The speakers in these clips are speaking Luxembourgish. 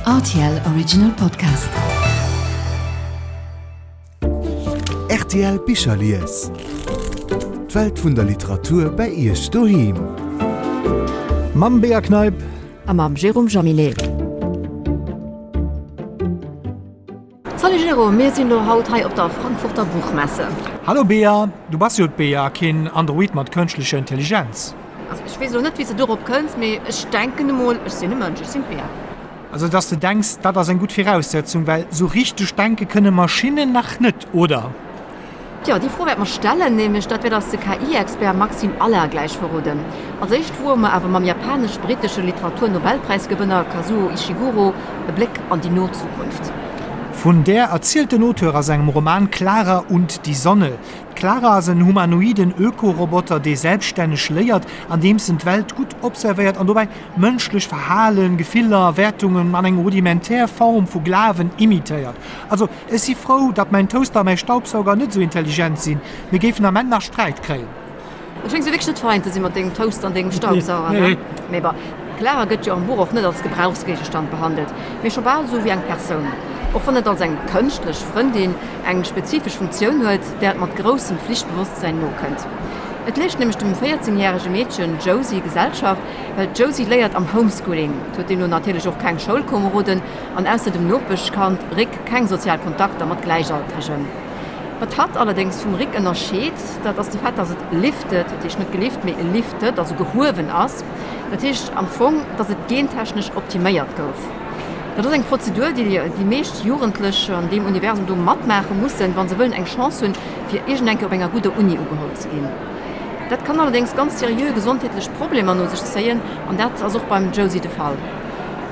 Rtl Original Podcast. Rtl Bicherlies. D'Welt vun der Literatur bei Iech doheem. Mam Bea Kneip. A mam Jérôme Jaminet. Salut Jérôme, mir sinn lo haut hei op der Frankfurter Buchmesse. Hallo Bea, du bass jo d'Bea, keen Android mat kënschtlecher Intelligenz. Also ech weess elo net wéi s de dorop kënns, mee ech denken emol, ech sinn e Mënsch, ech sinn d'Bea. Also dass de denks, dat ass eng gutt Viraussetzung, well sou richteg denke kënne Maschinnen nach net, oder? Tjo, déi Fro wäerte mer stellen, nämlech dat wäert eis de KI-Expert Maxime Allard gläich verroden. Als éischt woe mer awer mam japanesch-brittesche Literatur-Nobelpräisgewënner Kazuo Ishiguro e Bléck an déi no Zukunft. Vun där erzielt den Auteur a sengem Roman Klara und die Sonne. D'Klara ass en humanoiden Öko-Roboter, dee selbststänneg léiert, andeems en d'Welt gutt observéiert an dobäi mënschlech Verhalen, Gefiller, Wäertungen an eng rudimentär Form vu Glawen imitéiert. Also Ech si frou, datt mäin Toaster a mäi Staubsauger net esou intelligent sinn. Mir géifen am Enn nach Sträit kréien. Du schéngs jo wierklech net fein ze si mat dengem Toaster an dengem Staubsauger, ne? Mee bon, d'Clara gëtt jo am Buch och net als Gebrauchsgéigestand behandelt, mee scho bal esou wéi eng Persoun. Och wann et als eng kënschtlech Frëndin eng spezifesch Funktioun huet, där et mat groussem Flichtbewosstsäin nokënnt. Et leescht nämlech dem 14 järege Meedchen Josie Gesellschaft, well d'Josie léiert am Homeschooling, huet deemno natierlech och keng Schoulkomeroden, an ausser dem Nopeschkand Rick keng sozial Kontakter mat Gläichaltregen. Wat hatt allerdéngs vum Rick ënnerscheet, dat ass de Fait, dass et lifted, dat heescht net gelift, mee lifted, also gehuewen ass. Dat heescht am Fong, dass et gentechnesch optiméiert gouf. Dat ass eng Prozedur, déi déi meescht Jugendlech an deem Universum do matmaache mussen, wa se wëllen eng Chance hunn, fir iergendeng Kéier op enger gudder Uni ugeholl ze ginn. Dat kann allerdéngs ganz seriö gesondheetlech Problemer no sech zéien, an dat ass och beim Josie de Fall.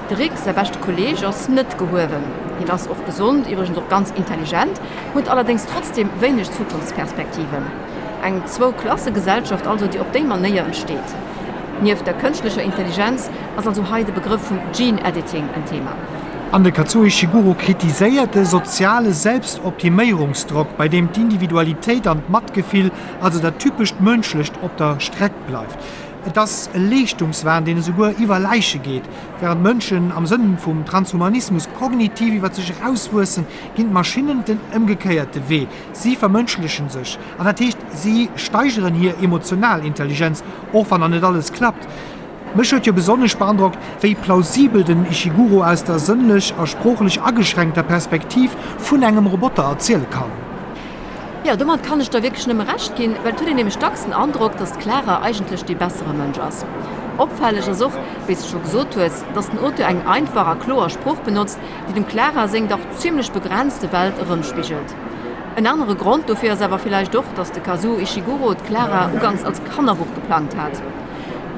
De Rick, säi beschte Kolleeg, ass net gehuewen. Hien ass och gesond, iwwregens och ganz intelligent, huet allerdéngs trotzdeem wéineg Zukunftsperspektiven. Eng Zwou-Klasse-Gesellschaft also, déi op déi Manéier entsteet. Nieft der kënschtlecher Intelligenz ass also hei de Begrëff vum Gene Editing en Thema. An de Kazuo Ishiguro kritiséiert de soziale Selbstoptiméierungsdrock, bei deem d'Individualitéit an d'Matgefill, also dat typescht Mënschlecht, op der Streck bleift. Et ass e Leeschtungswahn, deen esouguer iwwer Läiche geet. Wärend d'Mënschen am Sënn vum Transhumanismus kognitiv iwwer sech erauswuessen, ginn d'Maschinnen den ëmgekéierte Wee, Si vermënschlechen sech. An dat heescht, si steigeren hir emotional Intelligenz, och wann nach net alles klappt. Mech huet jo besonnesch beandrockt, wéi plausibel den Ishiguro aus der sënnlech a sproochlech ageschränkter Perspektiv vun engem Roboter erziele kann. Jo, domat kann ech der wierklech nëmme Recht ginn, well et huet een nämlech dacks den Androck, dass d'Clara eigentlech dee bessere Mënsch ass. Opfälleg ass och, wéi s de scho gesot hues, dass den Auteur eng einfach a kloer Sprooch benotzt, déi dem Clara seng dach zimmlech begrenzte Welt erëmspigelt. En anere Grond dofir ass awer villäicht och, dass de Kazuo Ishiguro d'Clara uganks als Kannerbuch geplangt hat.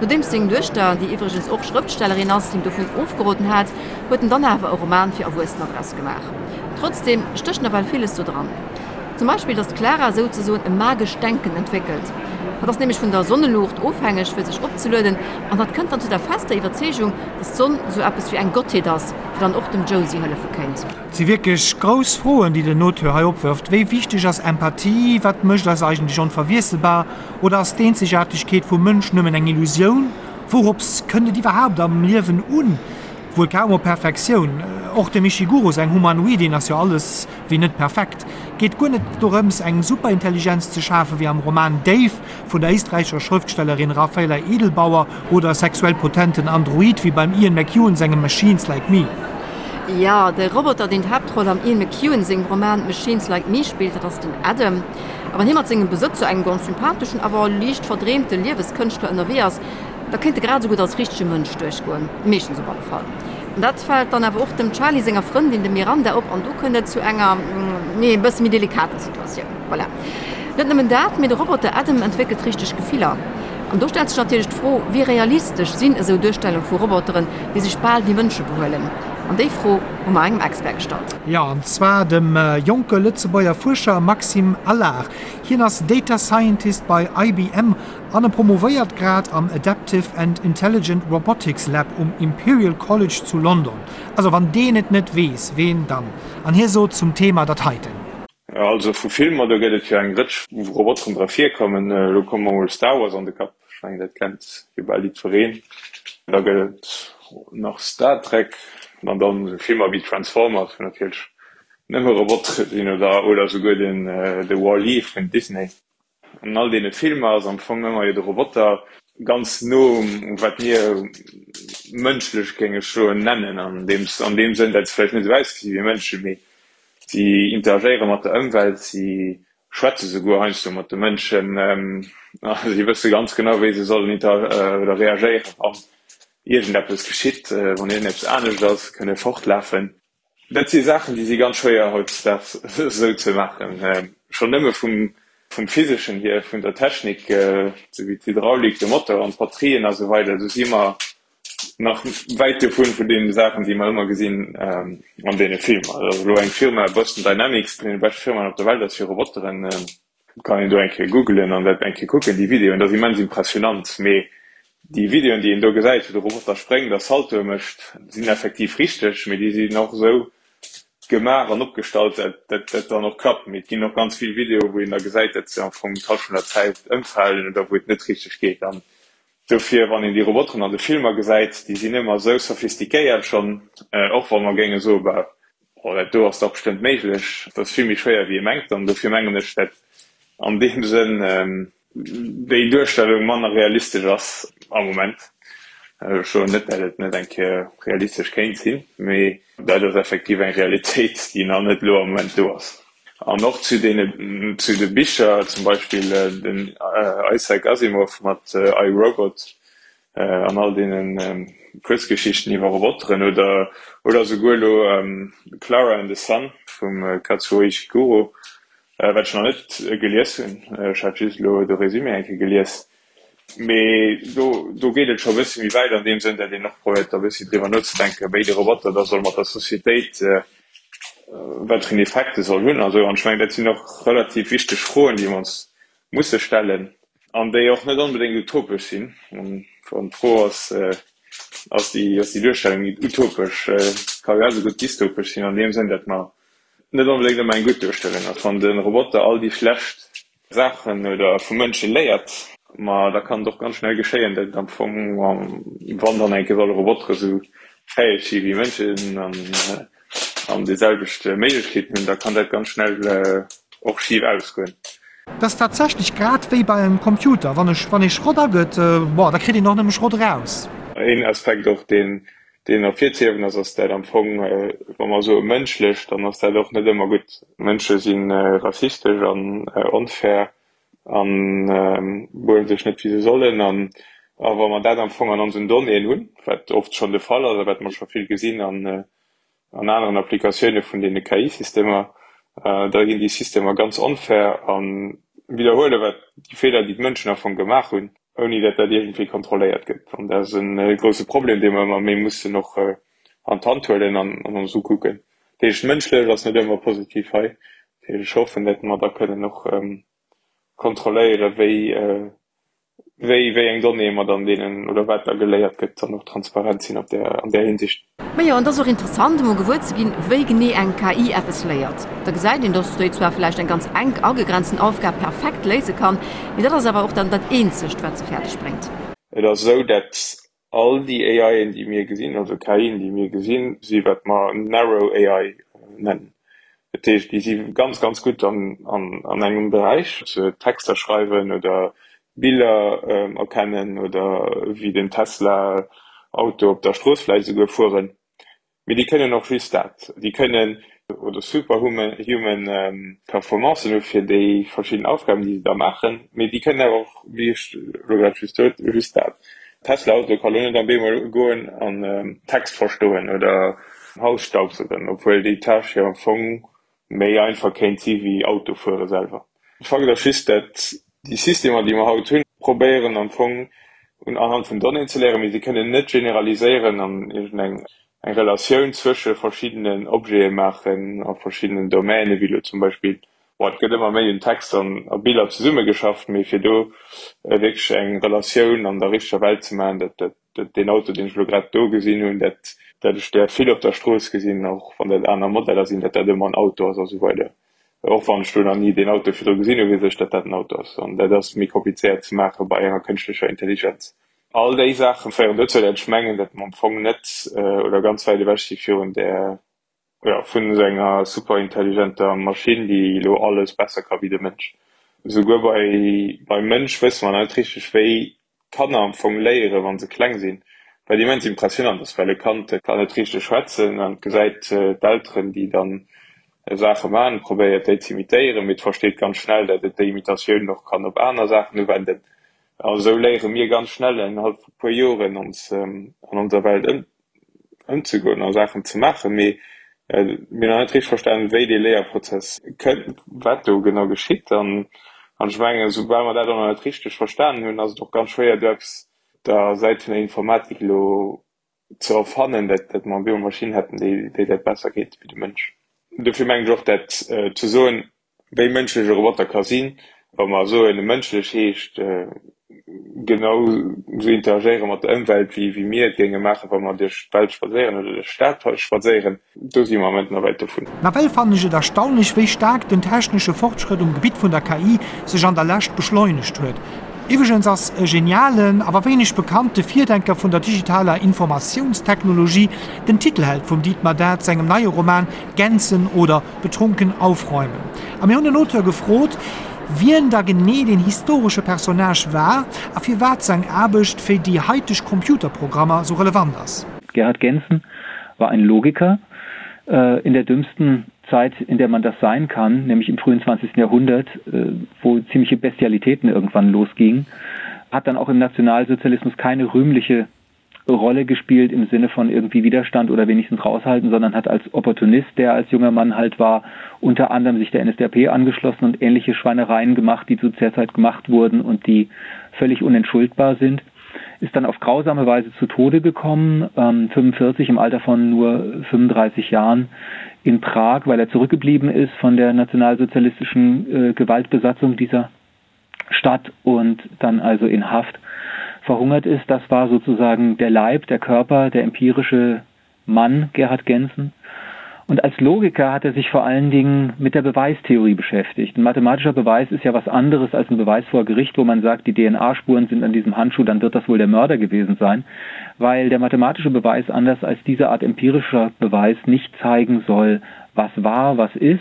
Nodeems seng Duechter, déi iwwregens och Schrëftstellerin ass, him dovun ofgeroden hat, huet en dann awer e Roman fir Erwuessener draus gemaach. Trotzdeem stécht nawell villes do dran. Zum Beispill, dass d'Clara souzesoen e magescht Denken entwéckelt. Hatt ass nämlech vun der Sonneluucht ofhängeg, fir sech opzelueden, an hatt kënnt dann zu der fester Iwwerzeegung, dass d'Sonn sou eppes wéi eng Gottheet ass, déi dann och dem Josie hëllefe kéint. Et si wierklech grouss Froen, déi den Auteur hei opwërft, Wéi wichteg ass Empathie? Wat mécht eis eigentlech onverwiesselbar? Oder ass d'Eenzegaartegkeet vum Mënsch nëmmen eng Illusioun? Wourops kënnt et iwwerhaapt am Liewen un? Wuel kaum op Perfektioun. Och dem Ishiguro säin Humanoidin ass jo alles wéi net perfekt. Geet guer net dorëms eng Superintelligenz ze schafen, wéi am Roman Dave vun der éisträichescher Schrëftstellerin Raphaela Edelbauer oder e sexuell potenten Android wéi beim Ian McEwan sengem Machines Like Me. Jo, de Roboter deen d'Haaptroll am Ian McEwan sengem Roman Machines Like Me spillt, dat ass den Adam. A wann hie mat sengem Besëtzer, engem ganz sympatheschen, awer liicht verdreemte Lieweskënschtler ënnerwee ass, Da kéint e grad esou gutt als richtege Mënsch duerchgoen, meeschtens op alle Fall. An dat fält dann awer och dem Charlie senger Frëndin, dem Miranda, op an do kënnt et zu enger, nee, e bësse méi delikater Situatioun. Voilà. Net nëmmen dat, mee de Roboter Adam entwéckelt richteg Gefiller. An do stellt sech natierlech d'Fro, wéi realistesch sinn esou Duerstellung vu Roboteren, déi sech bal wéi Mënsche behuelen? An déi Fro hu mer engem Expert gestallt. Jo, an zwar dem jonke Lëtzebuerger Fuerscher Maxime Allard. Hien ass Data Scientist bei IBM An e promovéiert grad am Adaptive and Intelligent Robotics Lab um Imperial College zu London. Also wann deen et net weess, ween dann? An hie sot zum Thema dat heiten. Also vu Filmer, do gëtt et jo eng Rëtsch wou Roboteren dra virkommen. Elo koum mer mol Star Wars an de Kapp, ech mengen dat kennt jo bal jiddwereen. Da gëtt et nach Star Trek. An dann esou Filmer wéi Transformers, wou natierlech nëmme Robotere sinn, oder oder esouguer den de Wall-E vun Disney. An all deene Filmer ass am Fong ëmmer jo de Roboter ganz no um wat mir mënschlech géinge soen nennen, an deem an deem Sënn, datt se vläicht net esou ausgesi wéi Mënschen, mee si interagéiere mat der Ëmwelt, si schwätze souguer heiansdo mat de Mënschen a si wësse ganz genau, wéi se sollen inter oder reagéieren, wann iergendeppes geschitt, wann iergendeppes anescht ass, kënne fortlafen. Dat si Saachen, déi si ganz schwéier hautdesdaags esou ze maachen. Schonn nëmme vum vum Physeschen hier, vun der Technik, esou wéi d'Hydraulik, de Motor an d'Batterien a sou weider, do si mer nach wäit dovun, vun deene Saachen, déi mer ëmmer gesinn an deene Filmer. Also elo eng Firma, Boston Dynamics, déi eng vun de beschte Firmaen op der Welt ass fir Roboteren, Kann een do eng Kéier googelen an dat eng Kéier kucken, déi Videoen, dat ass immens impressionant. Mee déi Videoen, déi een do gesäit, wou de Roboter spréngt a Saltoe mécht, sinn effektiv richteg, mee déi sinn och esou gemaach an opgestallt, dat dat dann och klappt. Mee et ginn och ganz vill Videoe wou een da gesäit, dat se am Fong d'Hallschent vun der Zäit ëmfalen oder wou et net richteg geet. An dofir, wann een déi Roboteren an de Filmer gesäit, déi sinn ëmmer esou sophistiquéiert schonn, och wa mer géinge soen, bah, Oh, dat do ass dach bestëmmt méiglech. Dat ass vill méi schwéier wéi ee mengt an dofir mengen ech, dat an deem Sënn déi Duerstellung manner realistesch ass am Moment. Ech soen net, dat et net eng Kéier realistesch kéint sinn, mee dat ass effektiv eng Realitéit, déi nach net elo am Moment do ass. An och zu deene, zu de Bicher, zum Beispill den Isaac Asimov mat I, Robot, an all deenen Kuerzgeschichten iwwer Roboteren oder oder esouguer elo Klara and the Sun vum Kazuo Ishiguro, wat ech nach net gelies hunn, ech hat just elo de Résumé eng Kéier gelies, mee do do geet et scho e bësse méi wäit an deem Sënn, datt een och probéiert da e bëssi driwwer nozedenken, wéi de Roboter da soll mat der Societéit, wat fir en Effekt e soll hunn a sou. An ech mengen, dat sinn och relativ wichteg Froen, déi mer ons musse stellen. An déi och net onbedéngt utopesch sinn. Wann d'Fro ass, ass déi, ass déi Duerstellung utopesch, ka grad esou gutt dystopesch sinn an deem Sënn, datt mer net onbedéngt ëmmer eng gutt Duerstellung ass. Wann de Roboter all déi schlecht Saachen oder vu Mënsche léiert, ma da kann et och ganz schnell geschéien, datt et am Fong, wann dann eng Kéier solle Robotere sou fäeg si wéi Mënschen an an déi selwecht Méiglechkeeten hunn, da kann dat ganz schnell och schif ausgoen. Et ass tatsächlech grad wéi bei engem Computer, wann ech, wann ee Schrott agëtt, bon, da kritt een och nëmme Schrott eraus. Een Aspekt och, deen, deen ervirzehiewen ass, ass dat am Fong, wa mer soe mënschlech, dann ass dat och net ëmmer gutt. Mënsche si rassistesch an onfair an behuelen sech net wéi se sollen. An a wa mer dat am Fong an onsen Donnéeën hunn, wat oft schonn de Fall ass a wat mer scho vill gesinn an an aneren Applikatioune vun deene KI-Systemer, da ginn déi Systemer ganz onfair a widderhuele wat déi Feeler, déi d'Mënschen am Fong gemaach hunn, ouni datt dat iergendwéi kontrolléiert gëtt. An dat ass e grousse Problem, dee mer ëmmer méi mussen och an d'Hand huelen an ons ukucken. Dat heescht, mënschlech ass net ëmmer positiv hei. Dat heescht, ech hoffen, datt mer da kënnen och kontrolléieren, wéi wéi wéi eng Donnéeë mer dann deenen oder wat da geléiert gëtt, dann och transparent sinn op där an där Hinsicht. Majo, an et ass och interessant emol gewuer ze ginn, wéi genee eng KI eppes léiert. Da gesäit een, dass déi zwar vläicht eng ganz enk agegrenzen Aufgab perfekt léise kann, mee dat ass awer och dann dat eenzegt, wat se fäerdeg bréngt. Et ass esou, dat All déi AIen, déi mir gesinn, also KIen, déi mir gesinn, si wat mer narrow AI nennen. Dat heescht, déi si ganz, ganz gutt an engem Beräich, Texter schreiwen oder Biller erkennen oder wéi den Tesla Auto op der Strooss vläicht esouguer fueren. Mee déi kënnen och just dat. Déi kënnen oder superhuman Performancen hu fir déi verschidden Aufgaben, déi se da maachen, mee déi kënnen awer och, wéi ech elo grad just sot, just dat. Tesla-Auto ka lo net am Bemol goen an Text verstoen oder Haus staubsaugen, obwuel déi Tâche jo am Fong méi einfach kéint si wéi Autofuere selwer. Fakt ass just, dat déi Systemer, déi mer haut hunn, probéieren am Fong un anhand vun Donnéeën ze léieren, mee se kënnen net generaliséieren an iergendeng eng Relatioun zwësche verschiddenen Objete maachen a verschiddenen Domänen, wéi elo zum Beispill, bon, et gëtt ëmmer méi un Text an a Biller zesummegeschafft, mee fir do wierklech eng Relatioun an der richteger Welt ze maachen, dat, dat dat deen Auto, deen ech elo grad do gesinn hunn, dat dat ech där vill op der Strooss gesinn, och wann dat aner Modeller sinn, dat dat ëmmer en Auto ass a sou weider. Och wann ech do nach ni deen Auto virdru gesinn hunn, weess ech, dat dat en Auto ass. An dat ass méi komplizéiert ze maache bei enger kënschtlecher Intelligenz. All déi Saache féieren dozou, datt ech mengen, datt mer am Fong net oder ganz wäit ewech si virun där, jo, vun esou enger superintelligenter Maschinn, déi elo alles besser ka wéi de Mënsch. Esouguer bei, beim Mënsch wësse mer nach net richteg, wéi d'Kanner am Fong léieren, wa se kleng sinn, wat immens impressionant ass, well e Kand kann net richteg schwätzen an gesäit d'Elteren, déi dann Saache maachen, probéiert déi z'imitéieren, mee et versteet ganz schnell, datt et déi Imitatioun och kann op aner Saachen uwenden. A sou léiere mir ganz schnell innerhalb vu puer Joren ons an onser Welt ëmzegoen a Saachen ze maachen. Mee mir hunn nach net richteg verstanen, wéi dee Léierprozess kënnt, wat do genau geschitt. An ech mengen, soubal mer dat och nach net richteg verstanen hunn, ass et och ganz schwéier, do eppes op der Säit vun der Informatik elo ze erfannen, dat dat mer elo Maschinn hätten, déi déi dat besser kéinte wéi de Mënsch. Dofir mengen ech och, dat ze soen, wéi mënschlech e Roboter ka sinn, wa mer soen, e mënschlech heescht genau esou interagéiere mat der Ëmwelt, wéi wéi mir et géinge maachen, wa mer duerch d'Welt spadséieren oder duerch d'Stad spadséieren, do si mer am Moment nach wäit dovun. Nawell fannen ech et erstaunlech, wéi staark den technesche Fortschrëtt um Gebitt vun der KI sech an der Lescht beschleunegt huet. Iwwregens ass e genialen, awer wéineg bekannte Virdenker vun der digitaler Informatiounstechnologie den Titelheld vum Dietmar Dath sengem neie Roman Gänzen oder betrunken aufräumen. A mir hunn den Auteur gefrot, wien da genee deen historesche Personnage war a firwat seng Aarbecht fir déi haiteg Computerprogrammer sou relevant ass. Gerhard Gentzen war ein Logiker in der dümmsten Zeit, in der man das sein kann, nämlich im frühen 20. Jahrhundert, wo ziemliche Bestialitäten irgendwann losgingen, hat dann auch im Nationalsozialismus keine rühmliche Rolle gespielt im Sinne von irgendwie Widerstand oder wenigstens raushalten, sondern hat als Opportunist, der als junger Mann halt war, unter anderem sich der NSDAP angeschlossen und ähnliche Schweinereien gemacht, die zu der Zeit gemacht wurden und die völlig unentschuldbar sind ist dann auf grausame Weise zu Tode gekommen, ähm, 45 im Alter von nur 35 Jahren in Prag, weil er zurückgeblieben ist von der nationalsozialistischen äh, Gewaltbesatzung dieser Stadt und dann also in Haft verhungert ist. Das war sozusagen der Leib, der Körper, der empirische Mann Gerhard Gensen. Und als Logiker hat er sich vor allen Dingen mit der Beweistheorie beschäftigt. Ein mathematischer Beweis ist ja was anderes als ein Beweis vor Gericht, wo man sagt, die DNA-Spuren sind an diesem Handschuh, dann wird das wohl der Mörder gewesen sein, weil der mathematische Beweis anders als diese Art empirischer Beweis nicht zeigen soll, was war, was ist,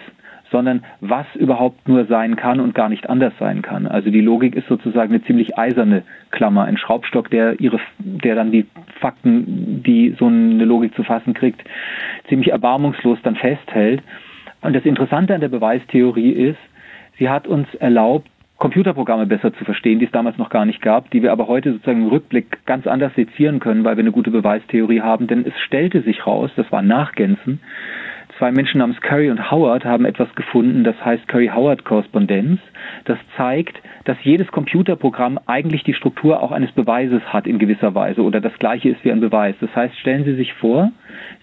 sondern was überhaupt nur sein kann und gar nicht anders sein kann. Also die Logik ist sozusagen eine ziemlich eiserne Klammer, ein Schraubstock, der ihre der dann die Fakten, die so eine Logik zu fassen kriegt, ziemlich erbarmungslos dann festhält. Und das Interessante an der Beweistheorie ist, sie hat uns erlaubt, Computerprogramme besser zu verstehen, die es damals noch gar nicht gab, die wir aber heute sozusagen im Rückblick ganz anders sezieren können, weil wir eine gute Beweistheorie haben. Denn es stellte sich raus, das war Nachgänzen, zwei Menschen namens Curry und Howard haben etwas gefunden, das heißt Curry-Howard-Korrespondenz. Das zeigt, dass jedes Computerprogramm eigentlich die Struktur auch eines Beweises hat in gewisser Weise oder das gleiche ist wie ein Beweis. Das heißt, stellen Sie sich vor,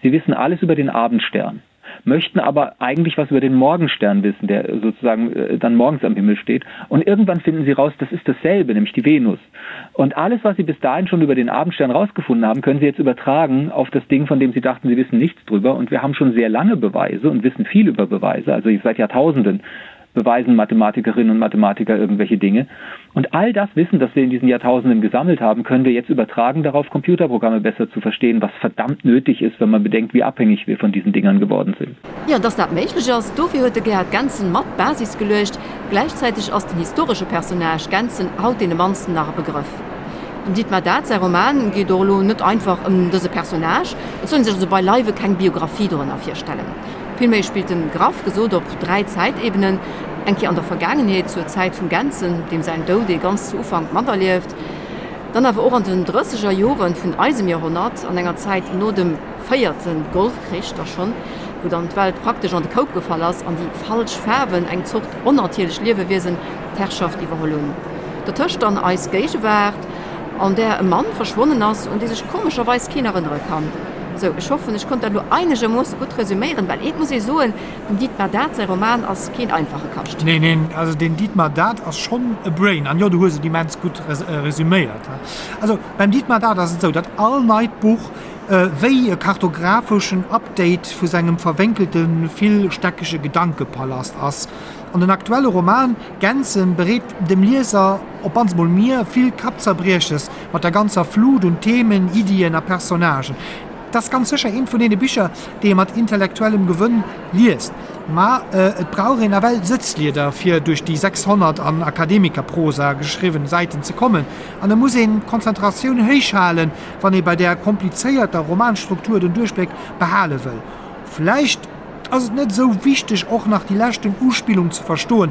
Sie wissen alles über den Abendstern möchten aber eigentlich was über den Morgenstern wissen, der sozusagen äh, dann morgens am Himmel steht. Und irgendwann finden sie raus, das ist dasselbe, nämlich die Venus. Und alles, was sie bis dahin schon über den Abendstern rausgefunden haben, können sie jetzt übertragen auf das Ding, von dem sie dachten, sie wissen nichts drüber. Und wir haben schon sehr lange Beweise und wissen viel über Beweise, also seit Jahrtausenden beweisen Mathematikerinnen und Mathematiker irgendwelche Dinge. Und all das Wissen, das wir in diesen Jahrtausenden gesammelt haben, können wir jetzt übertragen darauf, Computerprogramme besser zu verstehen, was verdammt nötig ist, wenn man bedenkt, wie abhängig wir von diesen Dingern geworden sind. Jo, dass dat méiglech ass, dofir huet de Gerhard Gentzen mat d'Basis geluecht. Gläichzäiteg ass den historesche Personnage Gentzen haut deene mannsten nach e Begrëff. Dem Dietmar Dath säi Roman geet och elo net einfach ëm dëse Personnage, et soll ee sech also beileiwe keng Biographie dorënner virstellen. Villméi spillt en, graff gesot, op 3 Zäitebenen, eng Kéier an der Vergaangenheet, zur Zäit vum Gentzen, deem säin Doud ee ganz zu Ufank materlieft, dann awer och an den drësseger Jore vun eisem Joerhonnert, an enger Zäit no dem véierte Golfkrich da schonn, wou dann d'Welt praktesch an de Koup gefall ass an déi falsch Faarwen, eng Zort onnatierlech Liewewiesen, d'Herrschaft iwwerholl hunn. Dertëscht dann eis Géigewaart, an där e Mann verschwonnen ass, un dee sech komescherweis keen erënnere kann. Sou, ech hoffen, ech konnt dat elo einegermoosse gutt resüméieren, well eent muss ee soen, dem Dietmar Dath säi Roman ass keen einfache Kascht. Neen, neen, also den Dietmar Dath ass schonn e Brain, an jo, du hues et immens gutt resüméiert. Also beim Dietmar Dath ass et esou, datt all neit Buch. wéi e kartographeschen Update vu sengem verwénkelte villstäckege Gedankepalast ass. An den aktuelle Roman Gänsen bereet dem Lieser, op mannst mol mir, vill Kappzerbrieches mat der ganzer Flut un Themen, Iddien a Personnagen. Et ass ganz sécher eent vun deene Bicher, déi ee mat intellektuellem Gewënn liest, ma et brauch een nawell Sëtzlieder, fir duerch déi 600 an Akademikerprosa geschriwwen Säiten ze kommen, an et muss een d'Konzentratioun héich halen, wann ee bei där komplizéierter Romanstruktur den Duerchbléck behale wëll. Vläicht ass et net esou wichteg, och nach déi leschten Uspillung ze verstoen,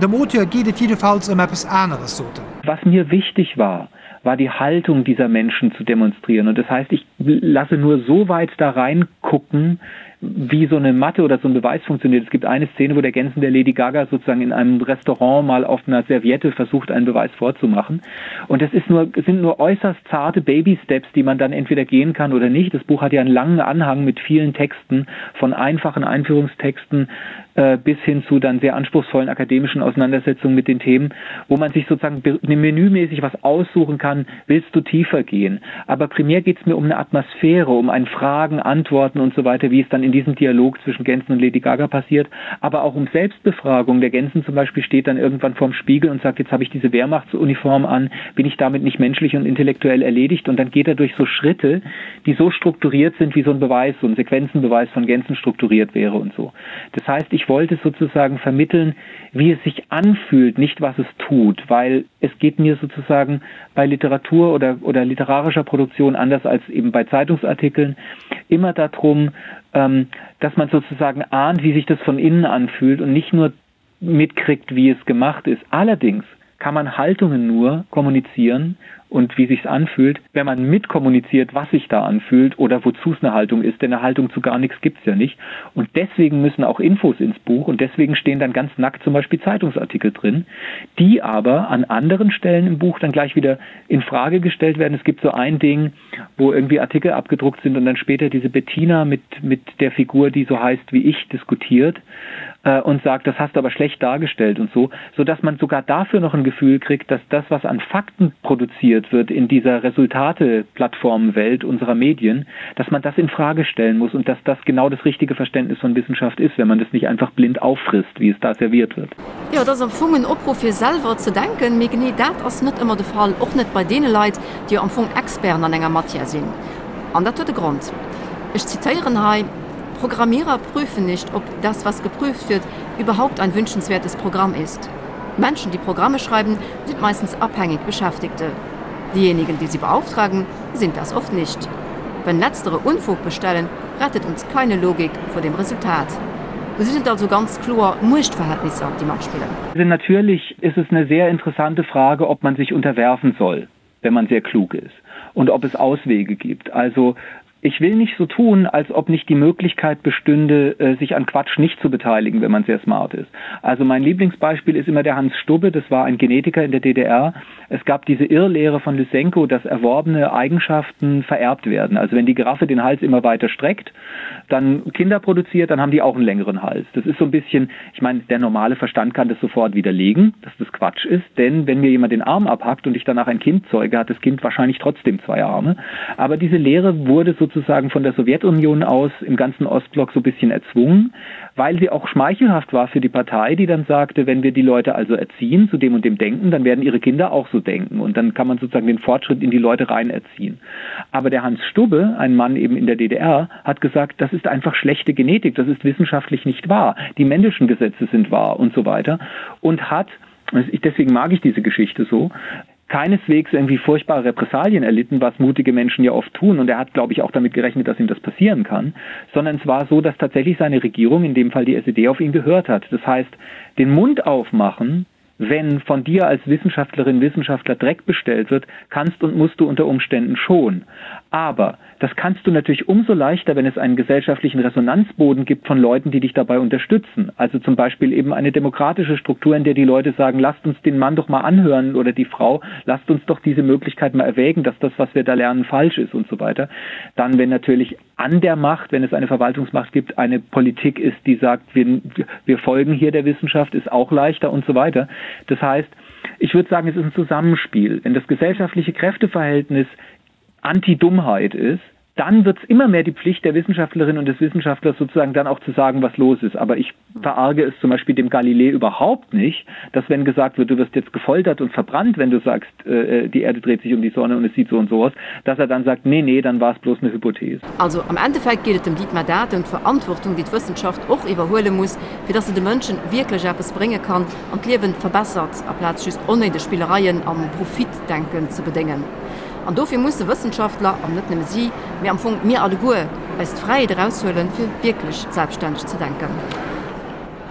dem Auteur geet et jiddefalls ëm eppes aneres, sot en. Was mir wichtig war, war die Haltung dieser Menschen zu demonstrieren. Und das heißt, ich lasse nur so weit da reingucken, wie so eine Mathe oder so ein Beweis funktioniert. Es gibt eine Szene, wo der Gänsen der Lady Gaga sozusagen in einem Restaurant mal auf einer Serviette versucht, einen Beweis vorzumachen. Und das ist nur, sind nur äußerst zarte Baby-Steps, die man dann entweder gehen kann oder nicht. Das Buch hat ja einen langen Anhang mit vielen Texten, von einfachen Einführungstexten äh, bis hin zu dann sehr anspruchsvollen akademischen Auseinandersetzungen mit den Themen, wo man sich sozusagen menümäßig was aussuchen kann, willst du tiefer gehen. Aber primär geht es mir um eine Atmosphäre, um ein Fragen, Antworten und so weiter, wie es dann in diesem Dialog zwischen Gänsen und Lady Gaga passiert, aber auch um Selbstbefragung. Der Gänsen zum Beispiel steht dann irgendwann vorm Spiegel und sagt, jetzt habe ich diese Wehrmachtsuniform an, bin ich damit nicht menschlich und intellektuell erledigt? Und dann geht er durch so Schritte, die so strukturiert sind, wie so ein Beweis, so ein Sequenzenbeweis von Gänsen strukturiert wäre und so. Das heißt, ich wollte sozusagen vermitteln, wie es sich anfühlt, nicht was es tut, weil es geht mir sozusagen bei Literatur oder, oder literarischer Produktion anders als eben bei Zeitungsartikeln immer darum, ähm, dass man sozusagen ahnt, wie sich das von innen anfühlt und nicht nur mitkriegt, wie es gemacht ist. Allerdings kann man Haltungen nur kommunizieren und wie sich's anfühlt, wenn man mitkommuniziert, was sich da anfühlt oder wozu es eine Haltung ist, denn eine Haltung zu gar nichts gibt's ja nicht. Und deswegen müssen auch Infos ins Buch und deswegen stehen dann ganz nackt zum Beispiel Zeitungsartikel drin, die aber an anderen Stellen im Buch dann gleich wieder in Frage gestellt werden. Es gibt so ein Ding, wo irgendwie Artikel abgedruckt sind und dann später diese Bettina mit, mit der Figur, die so heißt wie ich, diskutiert äh, und sagt, das hast du aber schlecht dargestellt und so, so dass man sogar dafür noch ein Gefühl kriegt, dass das, was an Fakten produziert wird in dieser Resultate-Plattformwelt unserer Medien, dass man das in Frage stellen muss und dass das genau das richtige Verständnis von Wissenschaft ist, wenn man das nicht einfach blind auffrisst, wie es da serviert wird. Jo, et ass am Fong en Opruff fir selwer ze denken, mee genee dat ass net ëmmer de Fall, och net bei deene Leit, déi jo am Fong Experten an enger Matière sinn. An dat huet e Grond. Ech zitéieren hei, Programmierer prüfen nicht, ob das, was geprüft wird, überhaupt ein wünschenswertes Programm ist. Menschen, die Programme schreiben, sind meistens abhängig Beschäftigte. Diejenigen, die sie beauftragen, sind das oft nicht. Wenn letztere Unfug bestellen, rettet uns keine Logik vor dem Resultat. Do sinn et also ganz kloer Muechtverhältnisser, déi matspillen. Also natürlich ist es eine sehr interessante Frage, ob man sich unterwerfen soll, wenn man sehr klug ist und ob es Auswege gibt. Also ich will nicht so tun, als ob nicht die Möglichkeit bestünde, äh, sich an Quatsch nicht zu beteiligen, wenn man sehr smart ist. Also mein Lieblingsbeispiel ist immer der Hans Stubbe, das war ein Genetiker in der DDR. Es gab diese Irrlehre von Lysenko, dass erworbene Eigenschaften vererbt werden. Also wenn die Giraffe den Hals immer weiter streckt, dann Kinder produziert, dann haben die auch einen längeren Hals. Das ist so ein bisschen, ich meine, der normale Verstand kann das sofort widerlegen, dass das Quatsch ist, denn wenn mir jemand den Arm abhackt und ich danach ein Kind zeuge, hat das Kind wahrscheinlich trotzdem zwei Arme. Aber diese Lehre wurde sozusagen von der Sowjetunion aus im ganzen Ostblock so ein bisschen erzwungen, weil sie auch schmeichelhaft war für die Partei, die dann sagte, wenn wir die Leute also erziehen zu dem und dem Denken, dann werden ihre Kinder auch so denken und dann kann man sozusagen den Fortschritt in die Leute rein erziehen. Aber der Hans Stubbe, ein Mann eben in der DDR, hat gesagt, das ist einfach schlechte Genetik, das ist wissenschaftlich nicht wahr. Die Mendelschen Gesetze sind wahr und so weiter und hat deswegen mag ich diese Geschichte so, keineswegs irgendwie furchtbare Repressalien erlitten, was mutige Menschen ja oft tun. Und er hat, glaube ich, auch damit gerechnet, dass ihm das passieren kann, sondern es war so, dass tatsächlich seine Regierung, in dem Fall die SED, auf ihn gehört hat. Das heißt, den Mund aufmachen, wenn von dir als Wissenschaftlerin, Wissenschaftler Dreck bestellt wird, kannst und musst du unter Umständen schon. Aber das kannst du natürlich umso leichter, wenn es einen gesellschaftlichen Resonanzboden gibt von Leuten, die dich dabei unterstützen. Also zum Beispiel eben eine demokratische Struktur, in der die Leute sagen, lasst uns den Mann doch mal anhören oder die Frau, lasst uns doch diese Möglichkeit mal erwägen, dass das, was wir da lernen, falsch ist und so weiter. Dann, wenn natürlich an der Macht, wenn es eine Verwaltungsmacht gibt, eine Politik ist, die sagt, wir, wir folgen hier der Wissenschaft, ist auch leichter und so weiter. Das heißt, ich würde sagen, es ist ein Zusammenspiel. Wenn das gesellschaftliche Kräfteverhältnis Anti-Dummheit ist, Dann wird es immer mehr die Pflicht der Wissenschaftlerin und des Wissenschaftlers sozusagen dann auch zu sagen, was los ist. Aber ich verarge es zum Beispiel dem Galilei überhaupt nicht, dass wenn gesagt wird, du wirst jetzt gefoltert und verbrannt, wenn du sagst, äh, die Erde dreht sich um die Sonne und es sieht so und so aus, dass er dann sagt, nee, nee, dann war es bloß eine Hypothese. Also am Endeffekt geet et dem Dietmar Dade ëm d'Verantwortung, déi d'Wëssenschaft och iwwerhuele muss, fir dass se de Mënschen wierklech eppes brénge kann an d'Liewen verbessert, aplaz just onnéideg Spillereien am Profitdenken ze bedéngen. An dofir musse Wëssenschaftler, an net nëmme si, mee am Fong mir alleguer, eis d'Fräiheet eraushuelen, fir wierklech selbststänneg ze denken.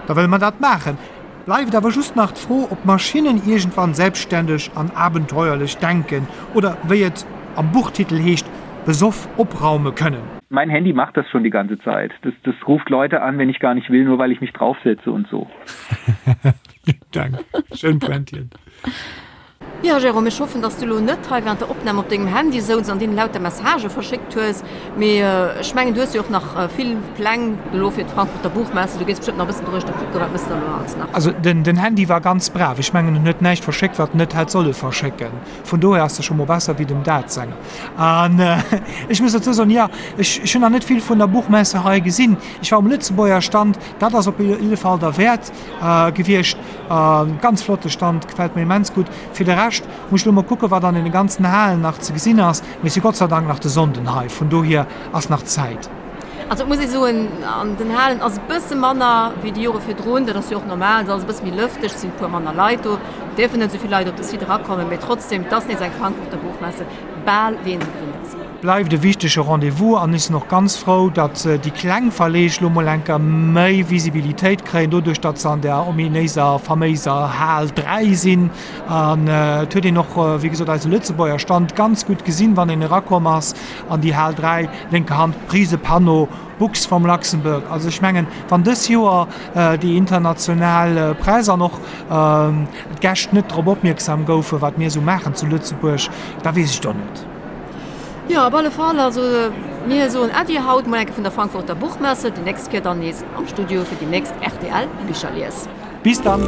Da wëlle mer dat maachen. Bleift awer just nach d'Fro, ob Maschinnen iergendwann selbstständeg an abenteuerlech denken oder, wéi et am Buchtitel heescht, besoff opraume kënnen. Mein Handy macht das schon die ganze Zeit. Das, das ruft Leute an, wenn ich gar nicht will, nur weil ich mich draufsetze und so. Dank. Schön pointiert. Jo Jérôme, ech hoffen dass du lo net hei während der Opnahm op dengem Handy souz an deenen lauter Messagë verschéckt hues, mee ech mengen du hues jo och nach vill Pläng elo fir d'Frankfurter Buchmesse, du gees bestëmmt nach e bëssen doruechter kucken, wat mëss de elo alles nach? Also den Handy war ganz brav, ech mengen en huet näischt verschéckt wat en net hätt solle verschécken, vun dohier ass e scho mol besser wéi dem Dad senger. An ech muss dozou soen, jo ech hunn nach net vill vun der Buchmesse hei gesinn, ech war um Lëtzebuerger Stand, dat ass op jidde Fall derwäert gewiescht. Ganz flotte Stand, gefällt mir immens gutt. Fir de Rescht muss ech lo mol kucken wat an den ganzen Halen nach ze gesinn ass, mee si Gott sei Dank nach de Sonnden hei, vun dohier ass nach Zäit. Also et muss ee soen, an den Halen ass e bësse manner wéi déi Jore virdrun, dat ass jo och normal, et ass alles e bësse méi lëfteg, et sinn e puer manner Leit do, et dierfen net esou vill Leit op de Site erakommen, mee trotzdem, et ass nees eng Frankfurter Buchmesse, bal wéi een se gewinnt ass. Bleift e wichtege Rendez-vous an ech sinn och ganz frou, datt déi kleng Verleeg lo mol enker méi Visibilitéit kréien, doduerch datt se an där ominéiser, faméiser Hal 3 sinn. An et huet een och, wéi gesot, eise Lëtzebuerger Stand ganz gutt gesinn, wann een erakomm ass an déi Hal 3, lénker Hand, rise Panneau, Books from Luxembourg. Also ech mengen, wann dës Joer déi international Press an och d'Gäscht net drop opmierksam goufen, wat mir esou maachen zu Lëtzebuerg, da weess ech et och net. Jo, op alle Fall. Also mir soen Äddi haut mol enke vun der Frankfurter Buchmesse, déi nächst Kéier dann nees am Studio fir déi nächst rtl Bicherlies. Bis dann!